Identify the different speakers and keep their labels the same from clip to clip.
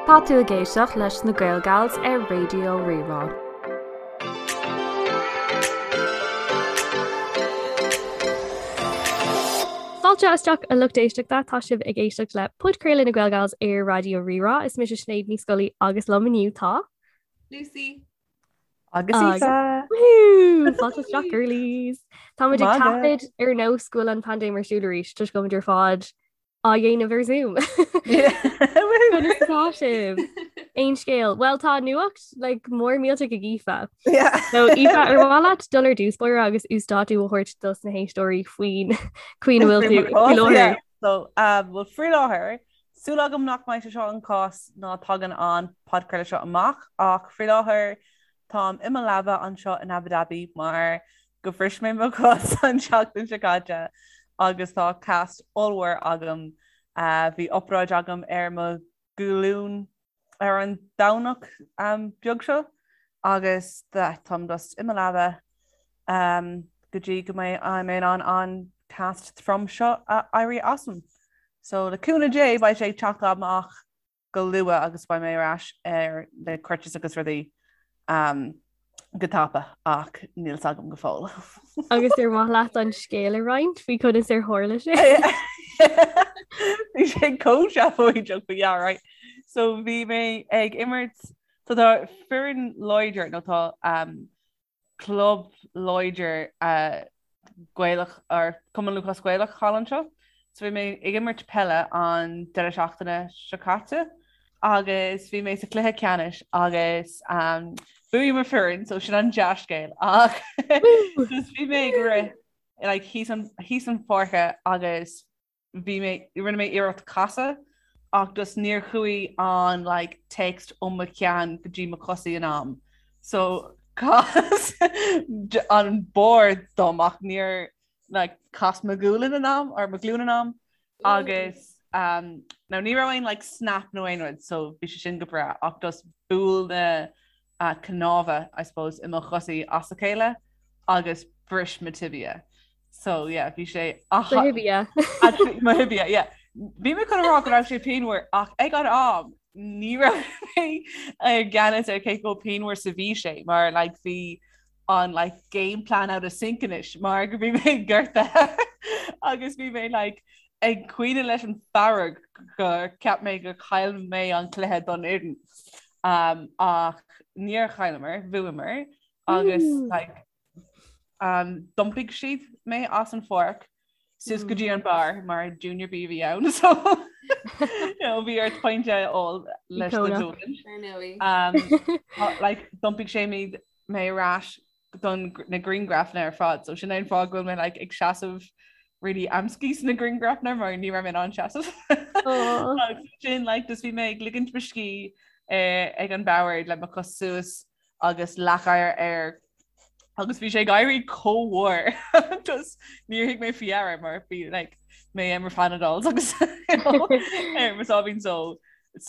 Speaker 1: Tá tú ag éisteacht leis na Gaelgals ar Raidió Rí-Rá.
Speaker 2: Fáilte isteach a lucht éisteachta, tá sibh ag éisteacht le podchraoladh na Gaelgals ar Raidió Rí-Rá. Is mise Sinéad Ní Scolaí agus liom inniu tá.
Speaker 3: Lucy.
Speaker 4: Agus Aoife!
Speaker 2: Woohoo! Fáilte isteach girlies! Táimid ag taifead ar nós go bhfuil an paindéim ar siúl arís toisc go bhfuilimid ar fad á dhéanamh ar Zoom. Conas atá sibh? Aon scéal? Well tá nuacht like, mór millteach ag Aoife.
Speaker 4: Yeah.
Speaker 2: So Aoife ar mhaith leat dul ar dtús báire agus uasdátú a thabhairt dos na héisteoirí faoin chaoi a bhfuil tú faoi láthair.
Speaker 4: So, um, well, faoi láthair, súil agam nach mbeidh sé seo an cás nuair a thagann an podchraoladh seo amach ach faoi láthair táim i mo leaba anseo in Abu Dhabi mar go bhris mé mo chos an tseachtain seo caite agus tá cast ollmhór agam. Bhí obráid agam ar mo ghlúin ar an Domhnach beag seo agus táim just i mo leaba go dtí go mbeidh mé in ann an cast trom seo a éirí asam. So le cúnamh Dé beidh sé ag teacht amach go luath agus beidh mé ar ais ar na crutches agus rudaí go tapa ach níl 's agam go fóill.
Speaker 2: Agus ar mhaith leat an scéal a roinnt faoi conas ar tharla sé?
Speaker 4: Bhí sé chomh seafóideach but yeah right. So bhí mé ag imirt so tá foireann láidir nó tá um, club láidir Gaelach or Cumann Lúthchleas Gaelach thall anseo. So bhí mé ag imirt peile an deireadh seachtaine seo caite agus bhí mé sa chluiche ceannais agus um, bhuaigh mo foireann so sin an dea-scéal ach just bhí mé ag rith like, thíos an, thíos an pháirce agus bhí mé, rinne mé iarracht casadh ach just níor chuaigh an like text ó mo cheann go dtí mo chosaí in am. So chas an bord dom ach níor like chas mo ghualainn in am or mo ghlúin in am agus um, now ní raibh aon like snap nó aon rud so bhí sé sin go breá ach just bhuail na uh, cnámha I suppose i mo chosaí as a chéile agus bhris mo tibia. So yeah, bhí sé
Speaker 2: Do thibia.
Speaker 4: Mo thibia, yeah. Bhí mé chun a rá go raibh sé pianmhar ach ag an am ní raibh mé i gceannas ar cé chomh pianmhar is a bhí sé mar like bhí an like game plan out of sync anois mar go bhí mé gortaithe agus bhí mé like ag caoineadh leis an fearg gur cheap mé gur chaill mé an cluiche don fhoireann. Um, ach níor chailleamar, bhuamar agus like D'iompaigh siad mé as an pháirc suas go dtí an bar mar Junior B a bhí ann so bhí ort pint a ól leis do ghualainn. Like d'iompaigh sé mé mé ar ais don na grianghrafanna ar fad so sin é an fáth go bhfuil mé like ag seasamh really amscaí sna grianghrafanna mar ní raibh mé in ann seasamh. Sin like just bhí mé ag ligint mo scíth eh, ag an bord le mo chos suas agus leathchadhair air agus bhí sé ag éirí chomh mhór just níor thug mé faoi deara mar bhí like, mé ar mo Panadols agus ar mo sáimhín só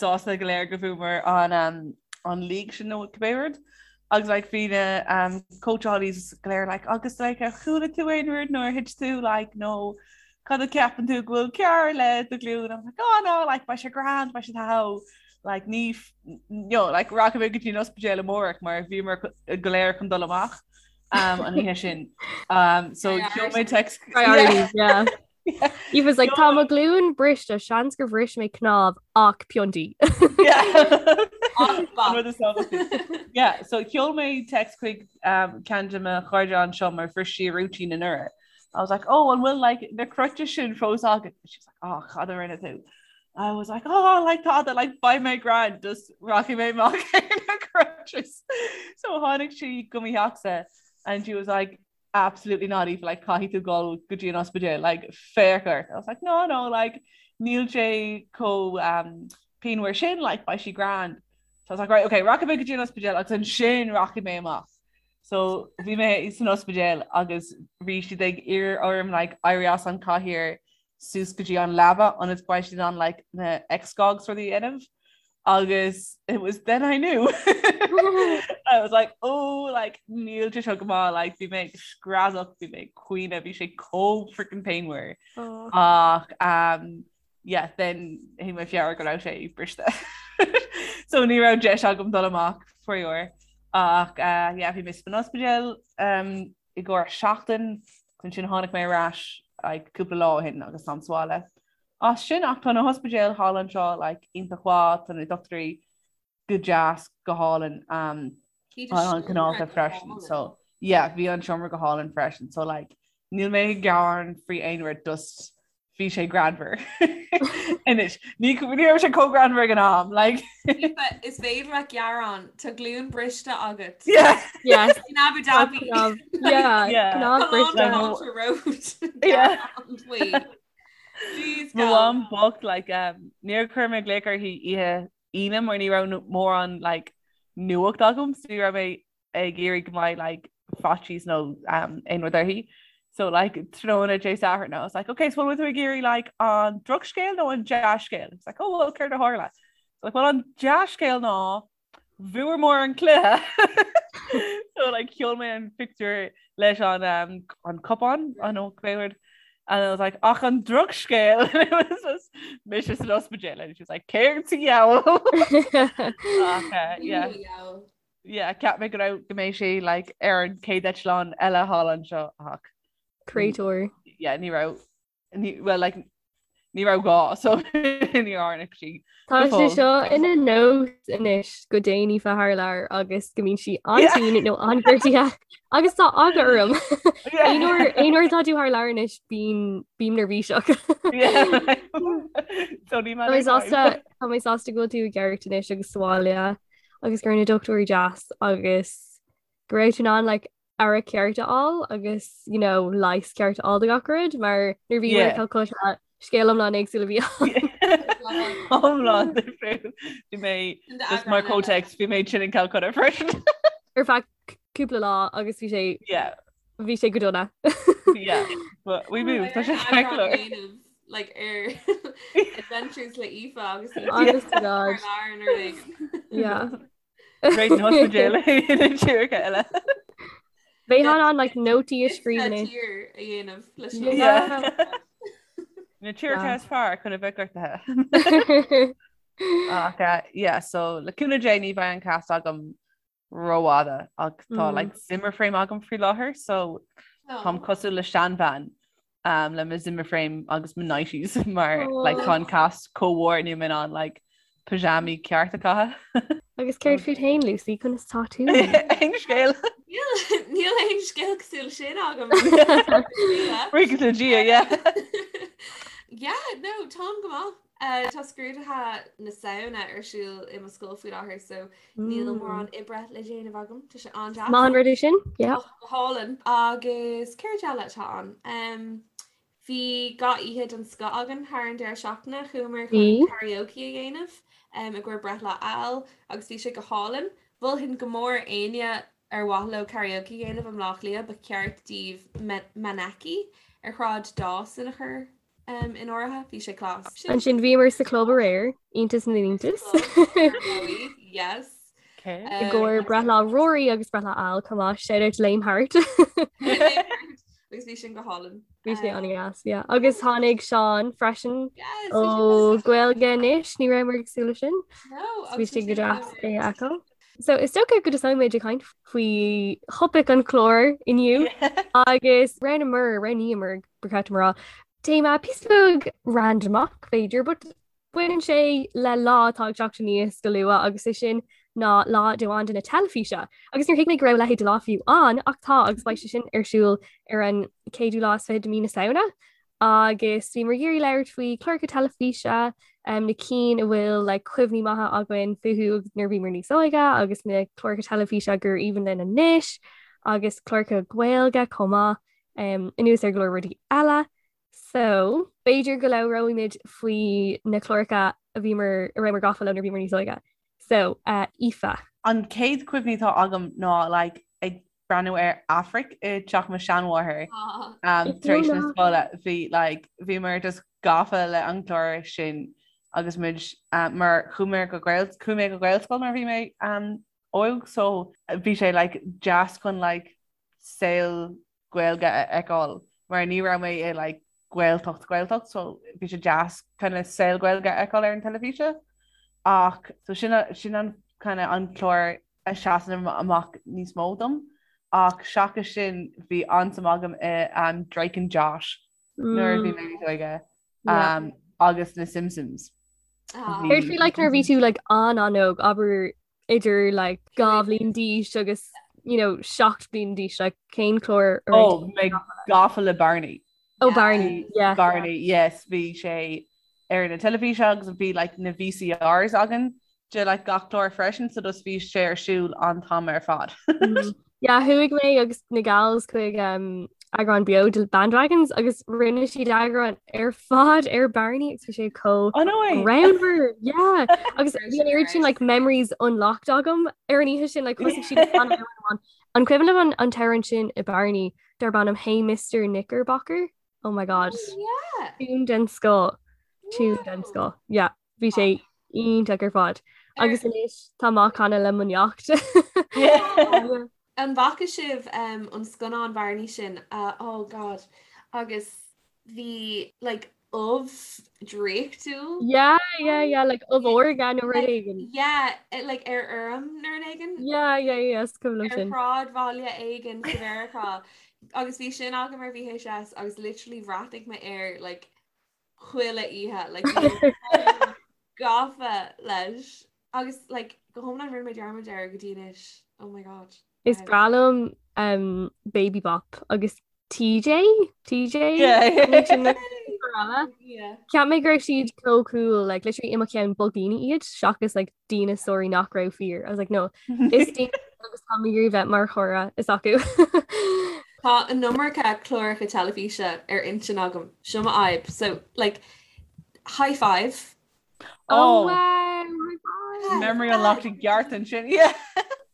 Speaker 4: sásta go léir go bhfuamar an um, an league sin nó cibé rud agus like, bhí na um, coachálaí go léir like, agus like, ar chuala tú aon rud nó ar thit tú like, nó cad a ceapann tú go bhfuil cearr le do ghlúin I'm like, oh no like, beidh sé grand beidh sé tá like ní you know, like rachaidh mé go dtí an ospidéal amárach mar bhíomar go léir chun dul amach um, an oíche sin. Um, so sheol mé text
Speaker 2: Priorities, yeah. He was like tá mo ghlúin briste seans gur bhris mé cnámh ach piontaí.
Speaker 4: Yeah, so sheol mé text chuig um, ceann de mo chairde anseo mar bhris sí a rúitín anuraidh. I was like, oh, an bhfuil like na crutches sin fós agat? She's like, oh, cad a rinne tú? I was like, oh, like tada, like beidh mé grand, just rachaidh mé amach ar na crutches. So tháinig sí go mo theachsa and she was like, absolutely not Aoife, like caithfidh tú dul go dtí an ospidéal, like féach ort. I was like, no, no, like níl sé chomh um, pianmhar sin, like beidh sé grand. So I was like, right, okay, rachaidh mé go dtí an ospidéal agus ansin rachaidh mé amach. So bhí mé san ospidéal agus bhí siad ag iarraidh orm like éirí as an cathaoir suas go dtí an leaba ionas go mbeidh siad in ann like na x-gogs rudaí a dhéanamh agus it was then I knew. I was like oh like níl sé seo go maith like bhí mé ag screadach bhí mé ag caoineadh bhí sé chomh freaking pianmhar. Oh. Ach um, Yeah then tháinig mé faoi deara go raibh sé briste. So ní raibh deis agam dul amach faraor. Ach uh, yeah, bhí mé san ospidéal um, i gcomhair seachtain, ansin tháinig mé ar ais like, cúpla lá ó shin agus táim sa bhaile. As sin ach tá na hospidéil thall anseo like, iontach mhaith, tá na dochtúirí go deas go hálainn um, an cineálta freisin so yeah bhí an seomra go hálainn freisin so like níl mé ag gearán faoi aon rud just bhí sé greannmhar anois ní ní raibh sé chomh greannmhar ag an am like
Speaker 3: Is féidir leat gearán tá glúin briste agat
Speaker 4: yeah
Speaker 2: Yes.
Speaker 3: in Abu Dhabi
Speaker 2: Yeah,
Speaker 4: Yeah.
Speaker 2: cnámh briste.
Speaker 3: road
Speaker 4: Yeah.
Speaker 3: Jeez,
Speaker 4: Mo
Speaker 3: gal.
Speaker 4: mham bocht like um, níor chuir mé glaoch uirthi oíche Aoine mar ní raibh mórán like nuacht agam so ní raibh mé ag iarraidh go mbeidh like faitíos nó um, aon rud uirthi. So like tráthnóna Dé Sathairn I was like okay so bhfuil tú ag iarraidh like an drochscéal nó an dea-scéal? It's like oh well céard a tharla? So like well an dea-scéal ná bhuamar an cluiche. So like sheol mé an pictiúr leis an um, an cupán an ó céard and I was like ach an drochscéal and it was just mise san ospidéal and she was like céard sa diabhal Ach, uh, yeah
Speaker 3: Diabhal.
Speaker 4: yeah cheap mé go raibh go mbeidh sé like ar an chéad eitleán eile thall anseo ach
Speaker 2: Créatúr.
Speaker 4: yeah ní raibh Ní, well, like, ní raibh gá, so ní tháinig sí.
Speaker 2: Tá sé seo ina nós anois go dtéann Aoife thar lear agus go mbíonn sí an-tinn nó an-ghortaithe agus tá eagla orm. Aon uair aon uair atá tú thar lear anois bím bím neirbhíseach.
Speaker 4: So ní
Speaker 2: Tá mé sásta tá mé sásta go bhfuil tú i gceart anois agus sa bhaile agus go raibh na dochtúirí deas agus go raibh tú in ann like, aire ceart a fháil agus you know, leigheas ceart a fháil do gach rud mar nuair bhí yeah. Calcutta scéal iomlán éagsúil a bhí
Speaker 4: Iomlán difriúil. Bhí mé just mar context bhí mé tinn in Calcutta freisin.
Speaker 2: Ar feadh cúpla lá agus bhí sé
Speaker 4: Yeah.
Speaker 2: bhí sé go dona.
Speaker 4: Yeah. But we moved. Tá sé ceart go leor.
Speaker 3: like ar adventures le Aoife agus
Speaker 2: Honest to God. Yeah.
Speaker 4: Réid na hospidéal na tíortha eile.
Speaker 2: Bheith an like nótaí a scríobh.
Speaker 3: Tír a dhéanamh leis
Speaker 2: na
Speaker 4: Yeah. Na tíortha is fearr chun a bheith gortaithe. Ach uh, yeah, so le cúnamh Dé ní bheidh an cast agam rófhada ach tá
Speaker 2: Mm.
Speaker 4: like Zimmer frame agam faoi láthair so táim cosúil le seanbhean um, le mo Zimmer frame agus mo nighties mar like, tá an cast chomh mór níl mé in ann like, pyjamaí ceart a chaitheamh.
Speaker 2: Agus céard fút féin Lucy conas tá tú?
Speaker 4: Aon scéal.
Speaker 3: Níl aon scéal cosúil sin agam.
Speaker 4: Buíochas le Dia, yeah.
Speaker 3: Yeah, no, táim go maith. Uh, tá scrúduithe na Samhna ar siúl i mo scoil faoi láthair so níl mm. mórán oibre le déanamh agam Tá sé an-deas.
Speaker 2: Maith an rud é sin? Yeah.
Speaker 3: Go hálainn agus céard eile atá ann. Um, bhí gach oíche den scoth againn thar an deireadh seachtaine chuamar chun karaoke a dhéanamh um, i gcomhair breithlá Al agus bhí sé go hálainn. Mholfainn go mór éinne ar mhaith leo karaoke a dhéanamh i mBleá Cliath ba cheart daoibh Maneki ar Shráid Dawson a chur um, in áirithe, bhí sé class.
Speaker 2: Ansin bhíomar sa club aréir, iontas na n-iontas.
Speaker 3: Yes.
Speaker 4: Okay.
Speaker 2: I gcomhair breithlá Rory agus breithlá Al chomh maith, shout out to Lame Heart.
Speaker 3: Agus bhí sin go hálainn.
Speaker 2: Bhí sé an-deas, yeah. Agus tháinig Seán freisin
Speaker 3: Yes,
Speaker 2: ó Gaeilge anois, ní rabhamar ag súil leis sin.
Speaker 3: No,
Speaker 2: Bhí sé go deas é a fheiceáil. So is dócha go dtosóidh muid ag caint faoi thopaic an chláir inniu agus roghnaíomar, roghnaíomar ba cheart dom a rá, téama píosa beag randamach b'fhéidir, but baineann sé le lá atá ag teacht aníos go luath agus é sin ná Lá Domhanda na Teilifíse. Agus níor thuig mé go raibh a leithéid de lá fiú ann ach tá agus beidh sé sin ar siúl ar an chéadú lá is fiche de mí na Samhna. Agus bhíomar ag iarraidh labhairt faoi chláracha teilifíse, um, na cinn a bhfuil like, cuimhní maithe againn fúthu nuair a bhíomar níos óige agus na cláracha teilifíse gur aoibhinn linn anois agus cláracha Gaeilge chomh maith um, anuas ar go leor rudaí eile. So, b'fhéidir go labhróimid faoi na cláracha a bhíomar a rabhamar gafa leo nuair a bhíomar níos óige. So, uh, Aoife.
Speaker 4: An chéad chuimhní atá agam ná like, ag breathnú ar Aifric i dteach mo sheanmháthar um, tar éis na scoile bhí like, bhíomar just gafa le an clár sin agus muid um, mar chuaigh mé go Gael chuaigh mé go Gaelscoil nuair a bhí mé um, óg so bhí sé like, deas chun like, saol Gaeilge a fheiceáil mar ní raibh mé i like, Gaeltacht Gaeltacht so bhí sé deas kind of saol Gaeilge a fheiceáil ar an teilifíse ach so sin sin an kind of an clár a seasann amach níos mó dom ach seachas sin bhí an-suim agam i um, Drake and Josh nuair a bhí mé níos óige um, agus na Simpsons.
Speaker 2: Ah. Céard faoi like nuair a bhí tú like an-an-óg abair idir like 2 bhliain d'aois agus you know 7 bliain d'aois like cén clár
Speaker 4: a raibh Oh, mé gafa le Barney.
Speaker 2: Oh Barney, yeah.
Speaker 4: Barney, yes, bhí sé ar na teilifíse agus bhí like na VCRs againn de like gach clár freisin so just bhí sé ar siúl an t-am ar fad.
Speaker 2: Yeah, chuaigh mé agus na gals chuig um, eagrán beo de Bandwagons agus rinne siad eagrán ar fad ar Barney agus bhí sé chomh
Speaker 4: Oh no way!
Speaker 2: greannmhar, yeah. Agus bhí an oiread sin like memories unlocked agam ar an oíche sin like thosaigh siad ag canadh amhrán amháin. An cuimhin libh an an t-amhrán sin i Barney darb ainm Hey Mr Knickerbocker? Oh my god.
Speaker 3: Oh, yeah.
Speaker 2: Tune den scoth. Tune den scoth. Yeah. Bhí sé iontach ar fad. Agus anois tá mé á chanadh le mo neacht.
Speaker 3: An bhfaca sibh an scannán Barney sin? Oh God. Agus bhí like ubh draíochtúil.
Speaker 2: Yeah, yeah, yeah, like ubh órga nó rud éigin.
Speaker 3: Yeah, like ar fheirm nó rud éigin.
Speaker 2: Yeah, yeah, yeah, is cuimhin liom sin.
Speaker 3: Ar shráidbhaile éigin sa Mheiriceá. Agus bhí sin agam ar VHS agus literally bhreathnaigh mé air like chuile oíche like gafa leis agus like go hiomlán rinne mé dearmad air go dtí anois oh my god
Speaker 2: Is breá liom um, Baby Bop agus TJ TJ
Speaker 3: Yeah.
Speaker 2: Cheap mé go raibh siad chomh cool like literally i mo cheann ba dhaoine iad seachas like díneasóirí nach raibh fíor. I was like no is daoine agus tá mé ag iarraidh bheith mar chara s'acu.
Speaker 3: Tá an iomarca cláracha teilifíse ar intinn agam, seo mo fhadhb. So, like, high five.
Speaker 4: Oh,
Speaker 2: oh wow, high five.
Speaker 4: Memory unlocked i gceart ansin, yeah.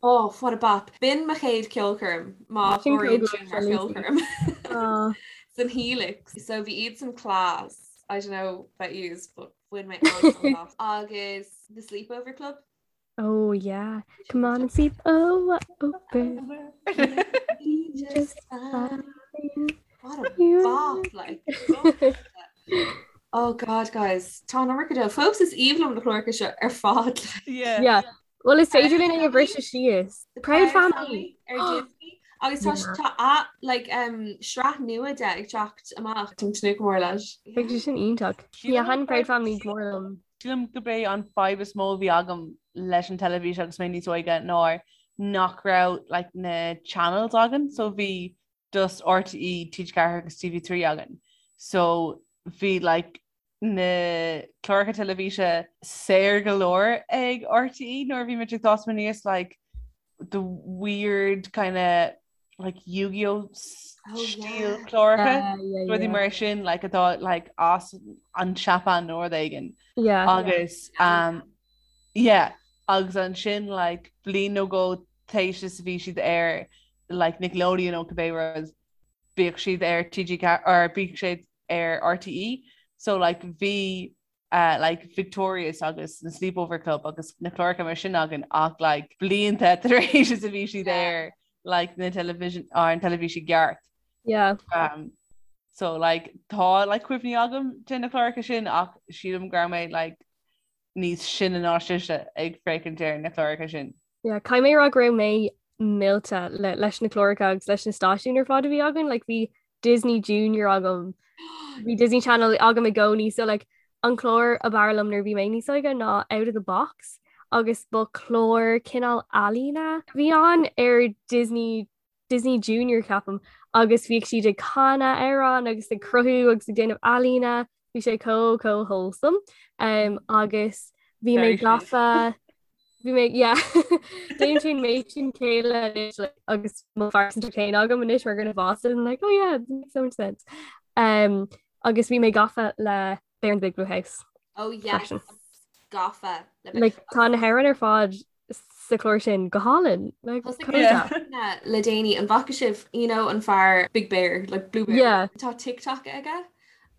Speaker 3: Oh, what a bop. B'in mo chéad ceolchoirm, má chomhaireann sin mar cheolchoirm. San Helix. So bhí iadsan class. I don't know about yous, but bhain mé an-sult as. Agus The Sleepover Club.
Speaker 2: Oh yeah, come on and sleep oh, over.
Speaker 3: Just fine. What a bop, like. Oh God, guys, tá an iomarca de. Fós is aoibhinn liom na cláracha seo ar fad.
Speaker 4: Yeah.
Speaker 2: Yeah. Well, is féidir linn é a bhriseadh síos. The Proud Family.
Speaker 3: Ar Disney. Agus tá tá a like um sraith nua de ag teacht amach. Táim ag tnúth go mór leis.
Speaker 2: Beidh sé sin iontach. Yeah, thaitin Proud Family go mór liom.
Speaker 4: Sílim gurb é an fadhb is mó a bhí agam leis an teilifís agus mé níos óige ná nach raibh like, na channels againn, so bhí just RTÉ, TG4 agus TV3 againn. So bhí like, na cláracha teilifíse saor go leor ag RTÉ nuair a bhí muid ag fás aníos like, the weird kind of like Yu-Gi-Oh stíl cláracha rudaí mar sin like atá like as an Seapáin nó rud éigin agus um, yeah agus ansin like bliain nó dhó tar éis is a bhí siad ar like Nickelodeon nó cibé rud bhíodh siad ar TG or bhíodh siad ar RTÉ so like bhí uh, like Victorious agus na Sleepover Club agus na cláracha mar sin againn ach like blianta tar éis is a bhí siad ar like na television ar an teilifís i gceart.
Speaker 2: Yeah.
Speaker 4: Um, so like tá like cuimhní agam de na cláracha sin ach sílim go raibh mé like níos sine ná sibhse ag féachaint ar na cláracha sin.
Speaker 2: Yeah, caithfidh mé a rá go raibh mé millte le, leis na cláracha agus leis na stáisiúin ar fad a bhí againn, like bhí Disney Junior agam, bhí Disney Channel agam i gcónaí, so like an clár ab fhearr liom nuair a bhí mé níos óige ná Out of the Box agus ba chlár cineál ealaíne a bhí ann ar Disney Disney Junior ceapaim agus bhíodh siad ag canadh amhrán agus ag cruthú agus ag déanamh ealaíne, bhí sé chomh chomh wholesome um, agus bhí mé gafa bhí mé yeah déanann sé méid sin céille anois like, agus mo phearsantacht féin agam anois mar dhuine fásta and I'm like oh yeah it makes so much sense um, agus bhí mé gafa le Bear in the Big Blue House
Speaker 3: Oh yes
Speaker 2: freisin.
Speaker 3: gafa le
Speaker 2: Like, tá na hamhráin ar fad sa chlár sin go hálainn. Like,
Speaker 3: Thosaigh
Speaker 2: chomh
Speaker 4: Yeah.
Speaker 2: deas.
Speaker 3: mé le déanaí an bhfaca sibh you know an fear Big Bear like Blue Bear
Speaker 2: Yeah.
Speaker 3: Tá TikTok aige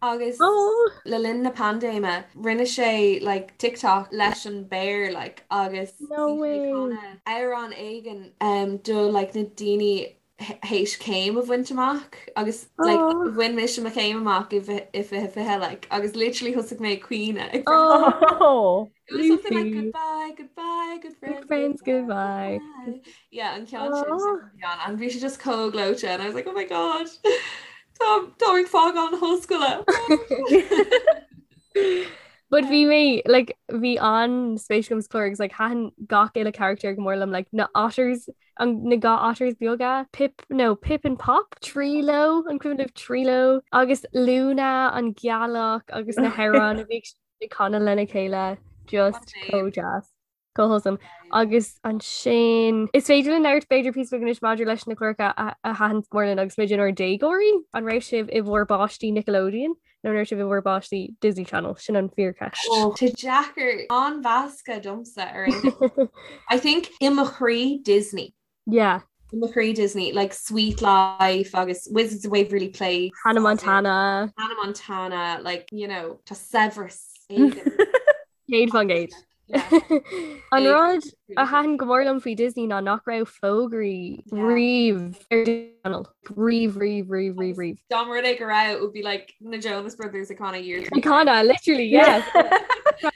Speaker 3: agus
Speaker 2: Oh.
Speaker 3: le linn na paindéime rinne sé like TikTok leis an bear like agus
Speaker 2: No
Speaker 3: bhí sé
Speaker 2: way.
Speaker 3: ag canadh amhrán éigin um, do like na daoine. théis céim a bhaint amach agus like bhain mise mo chéim amach i 2020 like agus literally thosaigh mé ag caoineadh ag
Speaker 4: Oh
Speaker 3: It was something like goodbye, goodbye, good friends,
Speaker 2: good friends, goodbye.
Speaker 3: goodbye. Yeah, an ceann sin and bhí sé just chomh gleoite and I was like, oh my god, tá tá ag fágáil na hollscoile.
Speaker 2: But bhí mé like bhí an-spéis agam sa chlár agus like thaitin gach uile character go mór liom like na otters an na ga otters beaga Pip no Pip and Pop Treelo an cuimhin libh Treelo agus Luna an gealach agus na hamhráin a bhí ag canadh lena chéile just chomh deas. Chomh wholesome. Agus ansin is féidir linn labhairt b'fhéidir píosa beag anois maidir leis na cláracha a thaitin go mór linn agus muid inár déagóirí. An raibh sibh i bhur bpáistí Nickelodeon nó an raibh sibh i bhur bpáistí Disney Channel? Sin an fíorcheist.
Speaker 3: Tá sé deacair an-mheasctha domsa ar aon I think i mo chroí Disney.
Speaker 2: Yeah.
Speaker 3: I mo chroí Disney, like Suite Life agus Wizards of Waverly Place.
Speaker 2: Hannah Montana.
Speaker 3: Hannah Montana, like, you know, tá saibhreas éigin.
Speaker 2: 100%. An rud a thaitin go mór liom faoi Disney ná nach raibh fógraí riamh ar Disney Channel. Riamh, riamh, riamh, riamh, riamh.
Speaker 3: Dá mba rud é go raibh, it would be like na Jonas Brothers ag canadh Year.
Speaker 2: Ag canadh, literally, yes.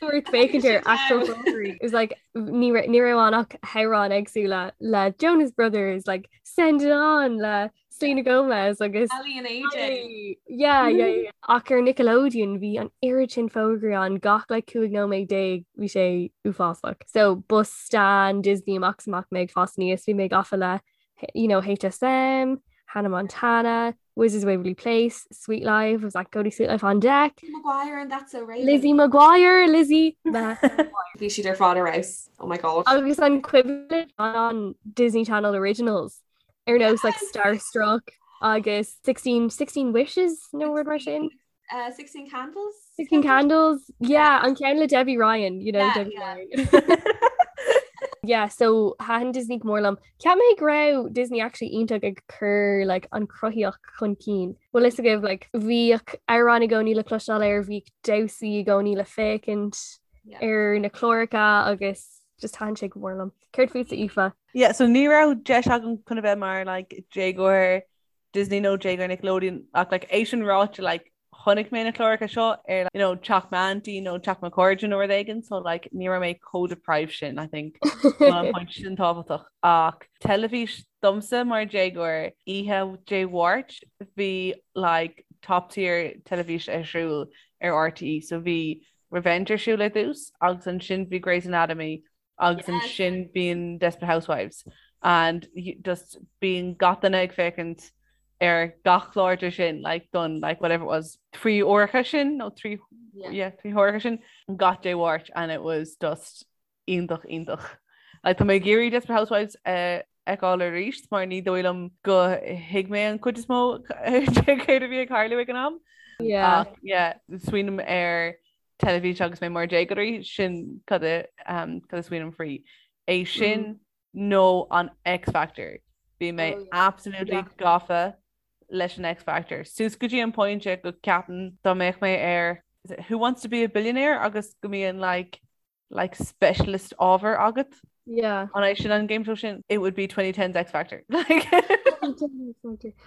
Speaker 2: Ort féachaint ar actual fógraí. It was like ní raibh ann ach hamhráin éagsúla le Jonas Brothers, like Send It On le Selena Gomez agus
Speaker 3: Aly and AJ.
Speaker 2: Yeah, yeah, yeah. Ach ar Nickelodeon bhí an oiread sin fógraí ann gach like 15 nóiméad bhí sé uafásach. So ba stan Disney amach is amach mé ag fás aníos, bhí mé gafa le you know, HSM, Hannah Montana, Wizards of Waverly Place, Suite Life, was like go to Suite Life on deck.
Speaker 3: Lizzie McGuire and That's So Raven.
Speaker 2: Lizzie McGuire, Lizzie
Speaker 3: Bhí siad ar fad ar fheabhas. Oh my god.
Speaker 2: Agus an cuimhin an Disney Channel Originals ar nós like Starstruck agus 16, 16 Wishes nó rud mar sin.
Speaker 3: Uh, 16 Candles?
Speaker 2: 16 Candles? Yeah, an ceann le Debbie Ryan, you know,
Speaker 3: Yeah,
Speaker 2: Debbie
Speaker 3: yeah.
Speaker 2: Ryan. Yeah, so thaitin Disney go mór liom. Cheap mé go raibh Disney actually iontach ag cur like, an chruthaíocht chun cinn. Bhfuil fhios agaibh like, bhíodh amhráin i gcónaí le cloisteáil air, bhíodh damhsaí i gcónaí le féachaint
Speaker 3: Yeah.
Speaker 2: ar na cláracha agus just thaitin sé go mór liom. Céard fútsa Aoife?
Speaker 4: Yeah, so ní raibh deis agam chun a bheith mar like, déagóir Disney nó déagóir Nickelodeon ach like, é sin ráite like, chonaic mé na cláracha seo ar you know, teach m'auntie nó teach mo chairde nó rud éigin so like, ní raibh mé chomh deprived sin I think an point sin tábhachtach ach teilifís domsa mar déagóir oíche Dé Mháirt bhí like, top tier teilifís ar siúl ar RTÉ so bhí Revenge ar siúl ar dtús agus ansin bhí Grey's Anatomy agus ansin bíonn Desperate Housewives and just bíonn gach duine ag féachaint ar gach clár de sin like don like whatever it was trí huaireacha sin nó trí yeah trí huaireacha sin gach Dé Mháirt and it was just iontach iontach. Like tá mé ag iarraidh Desperate Housewives a fheiceáil arís mar ní dóigh liom go thuig mé an chuid is mó de céard a bhí ag tarlú ag an am.
Speaker 2: Yeah.
Speaker 4: Ach yeah smaoiním ar teilifís agus mé mar déagóirí, sin cad a cad a smaoiním faoi. É sin nó an X Factor. Bhí mé
Speaker 3: Oh, yeah.
Speaker 4: absolutely
Speaker 2: Yeah.
Speaker 4: gafa leis an X Factor. Suas go dtí an pointe go ceapaim dá mbeadh mé ar is it Who Wants to be a Billionaire agus go mbíonn like like specialist ábhar agat.
Speaker 2: Yeah.
Speaker 4: An é sin an game show sin? It would be 2010's X Factor. Like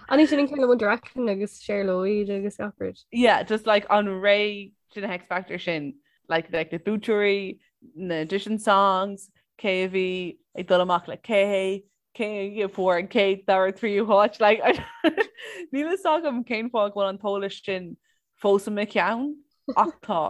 Speaker 2: An é sin an ceann le One Direction agus Cher Lloyd agus gach rud.
Speaker 4: Yeah, just like an ré sin na X Factor sin like like na buaiteoirí, na audition songs, cé a bhí ag dul amach le cé, cé a fuair an chéad, dara, tríú háit like níl fhios agam cén fáth go bhfuil an t-eolas sin fós i mo cheann ach tá.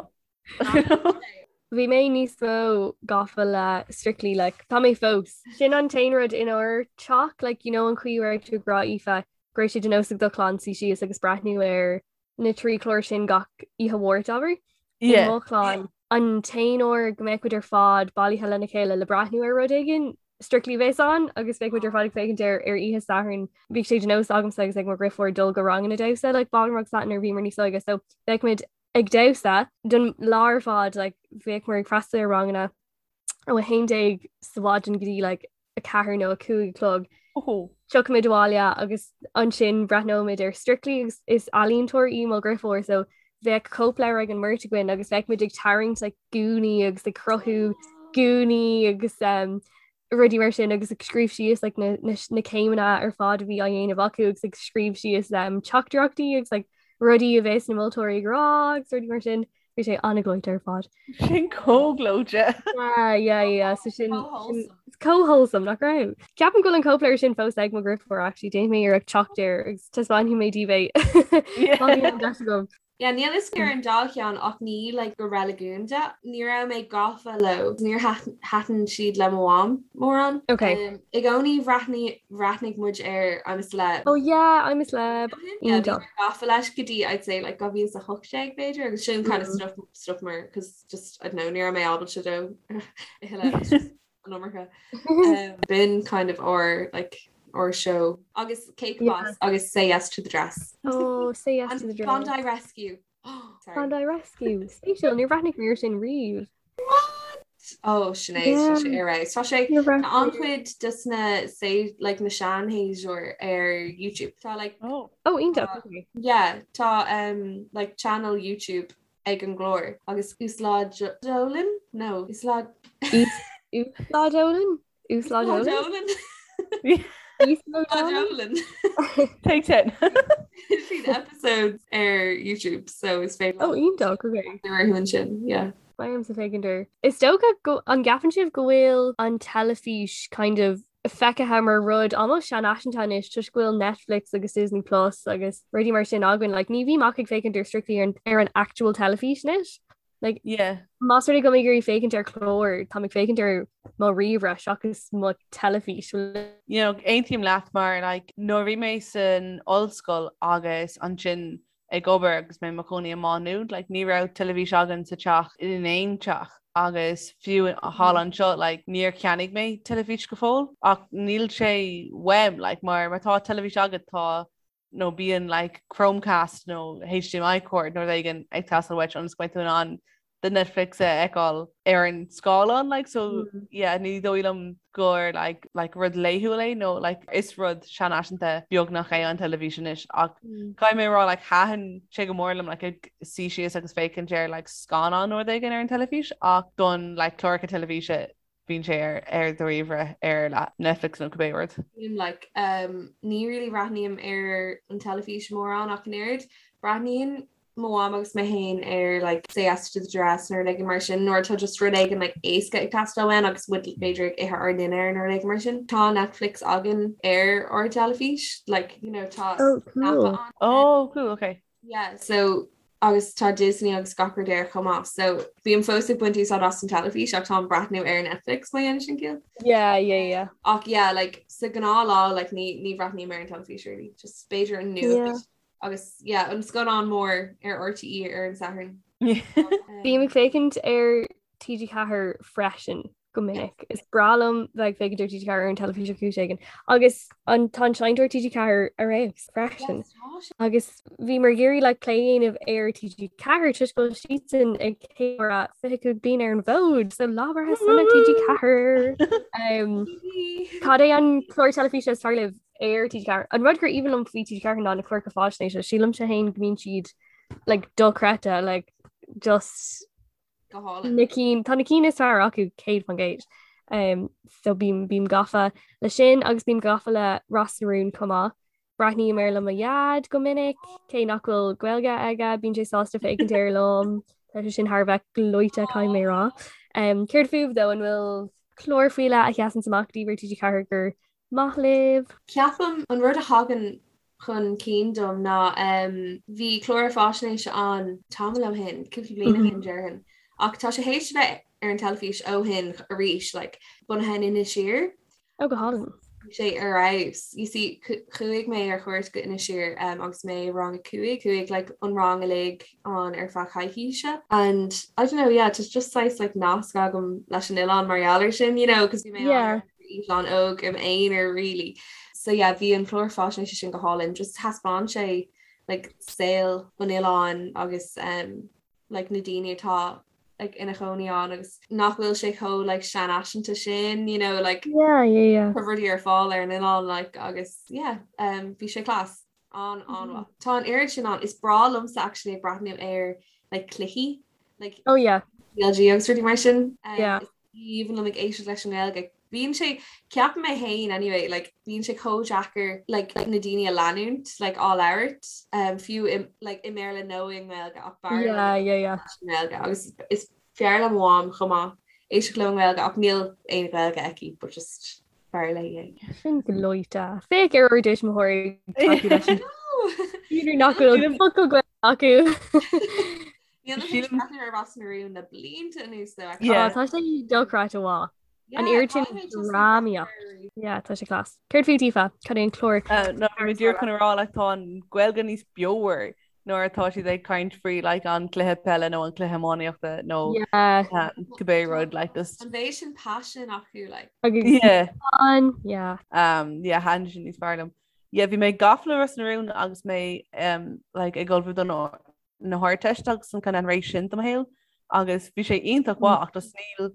Speaker 2: Bhí mé níos mó gafa le Strictly like tá mé fós. Sin an t-aon rud inár teach like you know an chaoi a raibh tú ag rá Aoife go raibh sé de nós ag do chlann suí síos agus breathnú ar na trí chlár sin gach oíche Mháirt abair. I
Speaker 4: Yeah.
Speaker 2: mo chlann an t-aon uair go mbeadh muid ar fad bailithe lena chéile le breathnú ar rud éigin Strictly a bheas ann agus bheadh muid ar fad ag féachaint air ar oíche Sathairn. Bhíodh sé de nós agamsa agus ag mo dheirfiúr dul go ranganna damhsa like ballroom agus that nuair a bhíomar níos óige so bheadh muid ag damhsa don lá ar fad like bhíomar ag freastal ar ranganna ó 11 sa mhaidin go dtí like 4 nó 5 a chlog.
Speaker 4: Oh.
Speaker 2: Tiocfaimid abhaile agus ansin breathnóimid ar Strictly agus is ealaíontóir í mo dheirfiúr so bheadh cóipleabhar ag an mbeirt againn agus bheadh muid ag tarraingt like gúnaí agus ag cruthú gúnaí agus um, Rudaí mar sin agus ag scríobh síos like, na, na, na céimeanna ar fad a bhí á dhéanamh acu agus ag scríobh síos um, teachtaireachtaí agus like, rudaí a bheas na moltóirí ag rá agus rudaí mar sin. Bhí sé an-ghleoite ar fad.
Speaker 4: Sin chomh gleoite.
Speaker 2: Yeah, yeah, yeah. So sin chomh wholesome nach raibh. Ceapaim go bhfuil an cóipleabhar sin fós ag mo dheirfiúr actually déanfaidh mé iarracht teacht air agus taispeánfaidh mé daoibh é. Má bhíonn an deis
Speaker 3: agam. Yeah, níl fhios ar an dá cheann ach ní like go reiligiúnda. Ní raibh mé gafa leo. Níor thaitin siad le mo mham mórán.
Speaker 2: Okay.
Speaker 3: Um, I gcónaí bhreathnaigh bhreathnaigh muid ar I'm a Celeb.
Speaker 2: Oh yeah, I'm a Celeb.
Speaker 3: Yeah, bhí mé gafa leis go dtí I'd say like 2018 b'fhéidir agus sin kind of mm. stop stop mar cause just I don't know ní raibh mé ábalta dó a thuilleadh. an iomarca. Um, b'in kind of our like our show agus Cake yeah. Boss agus Say Yes to the Dress.
Speaker 2: Oh, Say Yes to the Dress.
Speaker 3: Bondi Rescue.
Speaker 2: Oh, sorry. Bondi Rescue. Spéisiúil níor bhreathnaigh mé air sin riamh.
Speaker 3: What? Oh Sinéad yeah. sé ar Tá sé an-chuid des na say like na seanshéasúir ar YouTube. Tá like
Speaker 2: oh, oh iontach.
Speaker 3: Yeah, tá um, like channel YouTube ag an gclár agus uaslódálann? No,
Speaker 2: uaslód Uaslódálann?
Speaker 3: Uaslódálann?
Speaker 2: Uaslódálann?
Speaker 4: Take 10.
Speaker 3: Siad episodes ar YouTube so is féidir
Speaker 2: Oh iontach, okay.
Speaker 3: orthu ansin, yeah.
Speaker 2: Beidh ormsa féachaint air. Is dócha go an gceapann sibh go bhfuil an teilifís kind of feicthe mar rud almost seanfhaiseanta anois toisc go bhfuil Netflix agus Disney Plus agus rudaí mar sin againn. Like, ní bhím ach ag féachaint ar strictly ar an, ar an actual teilifís anois. Like,
Speaker 4: Yeah.
Speaker 2: más rud é go mbeidh ag iarraidh féachaint ar chlár, táim ag féachaint ar mo ríomhaire seachas mo teilifís.
Speaker 4: You know, aontaím leat mar like, nuair a bhí mé san ollscoil agus ansin ag obair agus mé i mo chónaí i Má Nuad, like, ní raibh teilifís againn sa teach in aon teach agus fiú thall anseo like, níor cheannaigh mé teilifís go fóill ach níl sé uaim like, mar má tá teilifís agat tá nó bíonn like, Chromecast nó HDMI cord nó rud éigin ag teastáil uait ionas go mbeidh tú in ann do Netflix a fheiceáil ar an scáileán like so mm. yeah ní dóigh liom gur like like rud laethúil é nó like is rud seanfhaiseanta beagnach é an teilifís anois ach mm. caithfidh mé rá like thaitin sé go mór liom like ag suí síos agus féachaint ar like scannán nó rud éigin ar an teilifís ach don like cláracha teilifíse bíonn sé ar ar do ríomhaire ar like Netflix nó cibé
Speaker 3: rud. Like um, ní really bhreathnaím ar an teilifís mórán ach an oiread. Breathnaíonn mo mham agus mé féin ar like Say Yes to the Dress nó rud éigin mar sin nuair atá just rud éigin like éasca ag teastáil uainn agus muid b'fhéidir ag ithe ár ndinnéar nó rud éigin mar sin. Tá Netflix againn ar ár dteilifís like you know tá
Speaker 2: Oh, cool.
Speaker 3: an.
Speaker 4: Oh, cool, okay.
Speaker 3: Yeah, so agus tá Disney agus gach rud air chomh maith, so bím fós ag baint úsáid as an teilifís ach táim ag breathnú ar Netflix má dhéanann sin ciall.
Speaker 2: Yeah, yeah, yeah.
Speaker 3: Ach yeah, like sa ghnáthlá like ní ní bhreathnaím ar an teilifís really, just b'fhéidir an nuacht
Speaker 2: Yeah.
Speaker 3: agus yeah, an scannán mór ar RTÉ ar an Satharn.
Speaker 2: Bím ag féachaint ar TG4 freisin. go minic. Is breá liom bheith ag féachaint ar TG4 ar an teilifís ar chúis éigin. Agus an tá an seinnteoir TG4 ar fheabhas freisin. Agus bhíomar ag iarraidh like, plé a dhéanamh ar TG4 toisc go bhfuil siadsan ag ceiliúradh 25 bliain ar an bhfód, so lá breithe sona TG4. Um, cad é an clár teilifíse is fearr libh ar TG4? An rud gur aoibhinn liom faoi TG4 ná na cláracha faisnéise, sílimse féin go mbíonn siad like, dochreidte, like, just
Speaker 3: Go hálainn.
Speaker 2: Na cinn, tá na cinn is fearr acu 100%. Um, so bím, bím gafa le sin agus bím gafa le Ros na Rún chomh maith. Breathnaím air le mo dhaid go minic, cé nach bhfuil Gaeilge aige, bíonn sé sásta féachaint air liom. Tá sé sin thar a bheith gleoite caithfidh mé a rá. Um, céard fúibh though, an bhfuil clár faoi leith a sheasann amach daoibh ar TG4 gur maith libh?
Speaker 3: Ceapaim an rud a thagann chun cinn dom ná bhí clár faisnéise ann tamall ó shin, cúpla bliain ó shin déarfainn, ach tá sé théis a bheith ar an teilifís ó shin arís, like, bunaithe in Inis Oírr.
Speaker 2: Oh, go hálainn.
Speaker 3: Bhí sé ar fheabhas. You see, chuaigh mé ar chuairt go Inis Oírr um, agus mé i rang a 5, chuaigh like, an rang uilig ann ar feadh coicíse. And I don't know, yeah, just just saghas like nasc agam leis an oileán mar gheall air sin, you know, cos bhí mé
Speaker 2: yeah.
Speaker 3: Eitleán óg im aonar really. So yeah bhí an clár faisnéise sin go hálainn, just thaispeáin sé like saol an oileáin agus um, like na daoine atá like ina chónaí ann agus nach bhfuil sé chomh like seanfhaiseanta sin, you know, like
Speaker 2: yeah, yeah, yeah.
Speaker 3: tá rudaí ar fáil ar an oileán like agus yeah, um, bhí sé class. An an-mhaith. Tá an oiread sin ann. Is breá liomsa actually ag breathnú ar like cluichí like
Speaker 2: Oh yeah.
Speaker 3: CLG agus rudaí mar sin.
Speaker 2: Yeah.
Speaker 3: Is aoibhinn liom ag éisteacht leis an nGaeilge. Bíonn sé, ceapaim mé féin anyway, like bíonn sé chomh deacair like na daoine a leanúint like á labhairt um, fiú i, like i mBéarla nó i nGaeilge ach b'fhearr liom
Speaker 2: Yeah, yeah, yeah.
Speaker 3: i nGaeilge agus is fearr le mo mham chomh maith éisteacht leo i nGaeilge ach níl aon Ghaeilge aici but just b'fhearr léi
Speaker 2: é. Sin gleoite. Féach ar ár dtuismitheoirí ag tacú leis an B'fhéidir nach bhfuil focal Gaeilge acu.
Speaker 3: Níl mé tar éis breathnú ar Ros na Rún le blianta anuas though.
Speaker 2: Yeah. Tá sé dochreidte mhaith. An oiread sin drámaíocht. Yeah, tá sé class. Céard fút Aoife? Cad é an clár?
Speaker 4: No, bhí mé díreach chun a rá like tá an Ghaeilge níos beomhar nuair atá siad ag caint faoi like an cluiche peile nó an cluiche iománaíochta nó
Speaker 2: Yeah.
Speaker 4: cibé rud like just
Speaker 3: An mhéid sin passion acu like.
Speaker 2: Agus
Speaker 4: yeah.
Speaker 2: an, yeah.
Speaker 4: Um, yeah, thaitin sin níos fearr liom. Yeah, bhí mé gafa le Ros na Rún agus mé um, like ag ullmhú don na hArdteiste agus an kind of an ré sin de mo shaol agus bhí sé iontach mhaith ach just níl